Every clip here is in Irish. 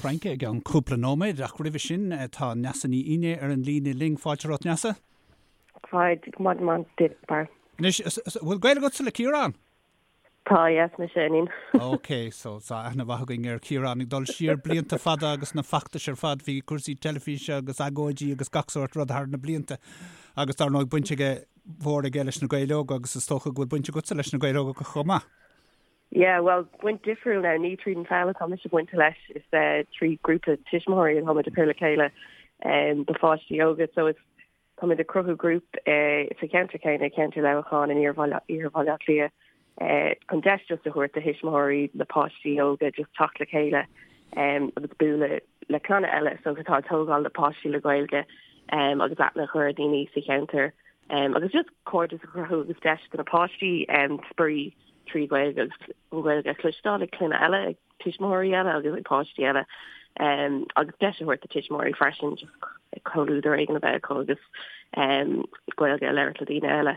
Fraince i gceann cúpla nóiméad, ach roimhe sin tá Neasa Ní Fhinné ar an líne linn. Fáilte romhat, Neasa. Fáilte, maidin mhaith duit, Barra. Anois, bhfuil gaol agatsa le Ciarán? Tá, yes, mise a iníon. Ok, so tá aithne mhaith againn ar Chiarán ag dul siar blianta fada agus na feachtais ar fad, bhí cúrsaí teilifíse agus agóidí agus gach sórt rud thar na blianta agus dar ndóigh baint aige mhór aige leis na Gaeil Óga agus is dócha go bhfuil baint agatsa leis na Gaeil Óga chomh maith. Yeah, well, baint difriúil now, ní tríd an pheil atá mise bainte leis, is trí grúpa tuismitheoirí atá muid ag cur le chéile do pháistí óga, so is Táimid ag cruthú grúp sa cheantar céanna, ceantar Leamhacháin in iarthar Bhaile Átha Cliath, chun deis just a thabhairt do thuismitheoirí le páistí óga just teacht le chéile agus bualadh le clanna eile so atá ag tógáil le páistí le Gaeilge agus aithne a chur ar dhaoine sa cheantar agus just cairdeas a chruthú agus deis do na páistí spraoi trí Ghaeilge agus an Ghaeilge a chloisteáil ag clainne eile ag tuismitheoirí eile agus ag páistí eile agus deis a thabhairt do tuismitheoirí freisin just comhluadar éigin a bheith acu agus Gaeilge a labhairt le daoine eile.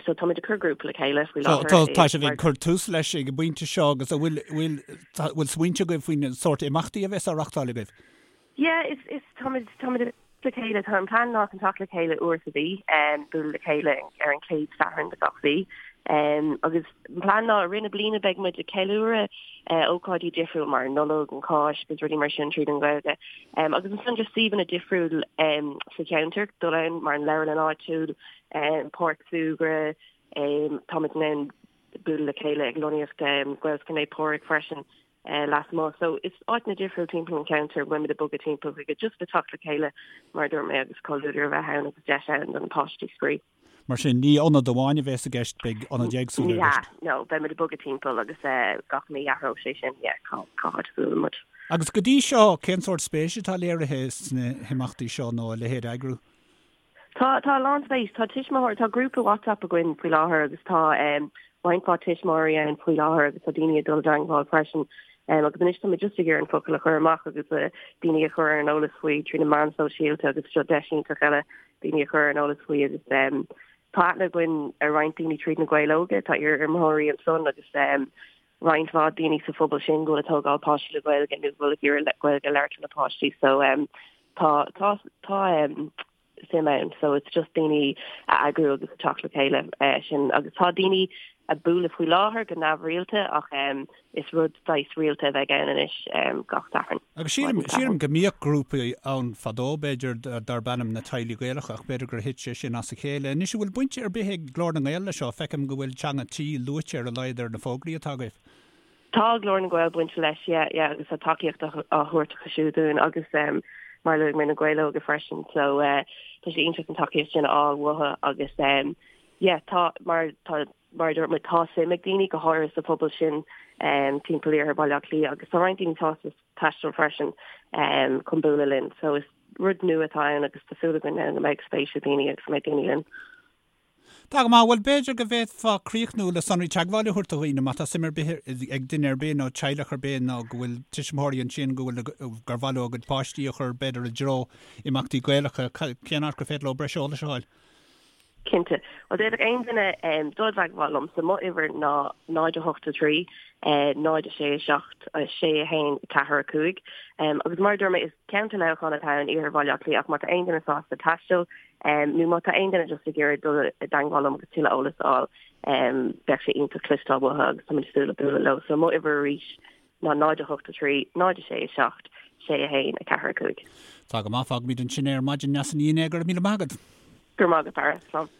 So táimid ag cur grúpa le chéile faoi láthair. Tá sibh ag cur tús leis ag an bpointe seo agus an bhfuil bhfuil bhfuil smaointe agaibh faoin sórt imeachtaí a bheas á reachtáil agaibh? Yeah, is, is, táimid, táimid ag le chéile, tá an plean ná chun teacht le chéile uair sa mhí, um, bualadh le chéile ar an chéad Satharn de gach mhí. Um, agus an plean ná i rith na bliana beidh muid ag ceiliúradh uh, ócáidí difriúil mar an Nollaig, an Cháisc agus rudaí mar sin tríd an Ghaeilge. Um, agus ansan just suíomhanna difriúil um, sa cheantar, dul ann mar an leabharlann áitiúil, um, páirc súgartha, um, táimid in ann bualadh le chéile ag lonnaíocht um, Gaelscoil Naomh Pádraig freisin. lasmuigh. So is áiteanna difriúil timpeall an cheantair a bhfuil muid ag bogadh timpeall chuige just le teacht le chéile mar a dúirt mé agus comhluadar a bheith ann agus deis ann do na páistí spraoi. Mar sin, ní ionad amháin a bheas i gceist, beidh ionaid éagsúla i gceist. Ní hea, no, beidh muid ag bogadh timpeall agus gach mí athróidh sé sin, yeah, cá cá háit a bhuaileann muid. Agus go dtí seo, cén sórt spéise atá léirithe sna himeachtaí seo nó a leithéid a eagrú? Tá, tá a lán spéis. Tá tuismitheoir, tá grúpa WhatsApp againn faoi láthair agus tá roinnt mhaith tuismitheoirí ann faoi láthair agus tá daoine ag dul i dteangmháil freisin. Agus anois tá muid just ag iarraidh an focal a chur amach agus daoine a chur ar an eolas faoi trí na meáin sóisialta agus seo deis iontach eile daoine a chur ar an eolas faoi agus tá aithne againn ar roinnt daoine tríd na Gaeil Óga, tá iar-imreoirí ansan agus roinnt mhaith daoine sa phobal sin go bhfuil ag tógáil páistí le Gaeilge nó go bhfuil ag iarraidh Gaeilge a labhairt lena páistí. So Tá, tá, tá suim ann so it's just daoine a eagrú agus a teacht le chéile sin agus tá daoine ag bualadh faoi láthair go neamhrialta ach is rud saghas rialta a bheidh ann anois gach Satharn. Agus sílim, sílim go mbíodh grúpaí ann fadó b'fhéidir darb ainm na Teaghlaigh Gaelacha ach b'fhéidir gur thit sé sin as a chéile. Anois an bhfuil baint ar bith ag Glór na nGael leis seo? Feicim go bhfuil Teanga Tí luaite ar a laghad ar na fógraí atá agaibh. Tá Glór na nGael bainte leis, yeah, yeah, agus tá tacaíocht á thabhairt acu siúd dúinn agus mar a luaigh mé na Gaeil Óga freisin, so tá sé iontach an tacaíocht sin a fháil uathu agus yeah, tá, mar tá, mar a dúirt mé, tá suim ag daoine, go háirithe sa phobal sin timpeall iarthar Bhaile Átha Cliath agus tá roinnt daoine sásta taisteal freisin chun bualadh linn, so is rud nua atá ann agus tá súil againn go mbeidh spéis ag daoine agus go mbeidh daoine linn. Tá go maith. Bhuel, b'fhéidir go bhféadfá críochnú le sonraí teagmhála a thabhairt do dhaoine má tá suim ar bith ag duine ar bith nó teaghlach ar bith nó go bhfuil tuismitheoirí ansin go bhfuil gur mhaith leo a gcuid páistí a chur b'fhéidir i dtreo imeachtaí Gaelacha, cén áit gur féidir leo breis eolais a fháil? Cinnte. Bhuel, d'fhéadfadh aon duine dul i dteagmháil liomsa. Mo uimhir ná 0 8 3 0 6 7 6 1 4 5. Agus mar a dúirt mé, is ceantar Leamhcán atá ann, iarthar Bhaile Átha Cliath, ach má tá aon duine sásta taisteal, Nó má tá aon duine just ag iarraidh dul i dteangmháil liom agus tuilleadh eolas a fháil, bheadh sé iontach cloisteáil uathu agus táimid ag súil le bualadh leo. So mo uimhir arís ná 0 8 3 0 6 7 6 1 4 5. Tá go maith, fágfaimid ansin é ar maidin Neasa Ní Fhinné, go raibh míle maith agat. Go raibh maith agat, Barra. Slán.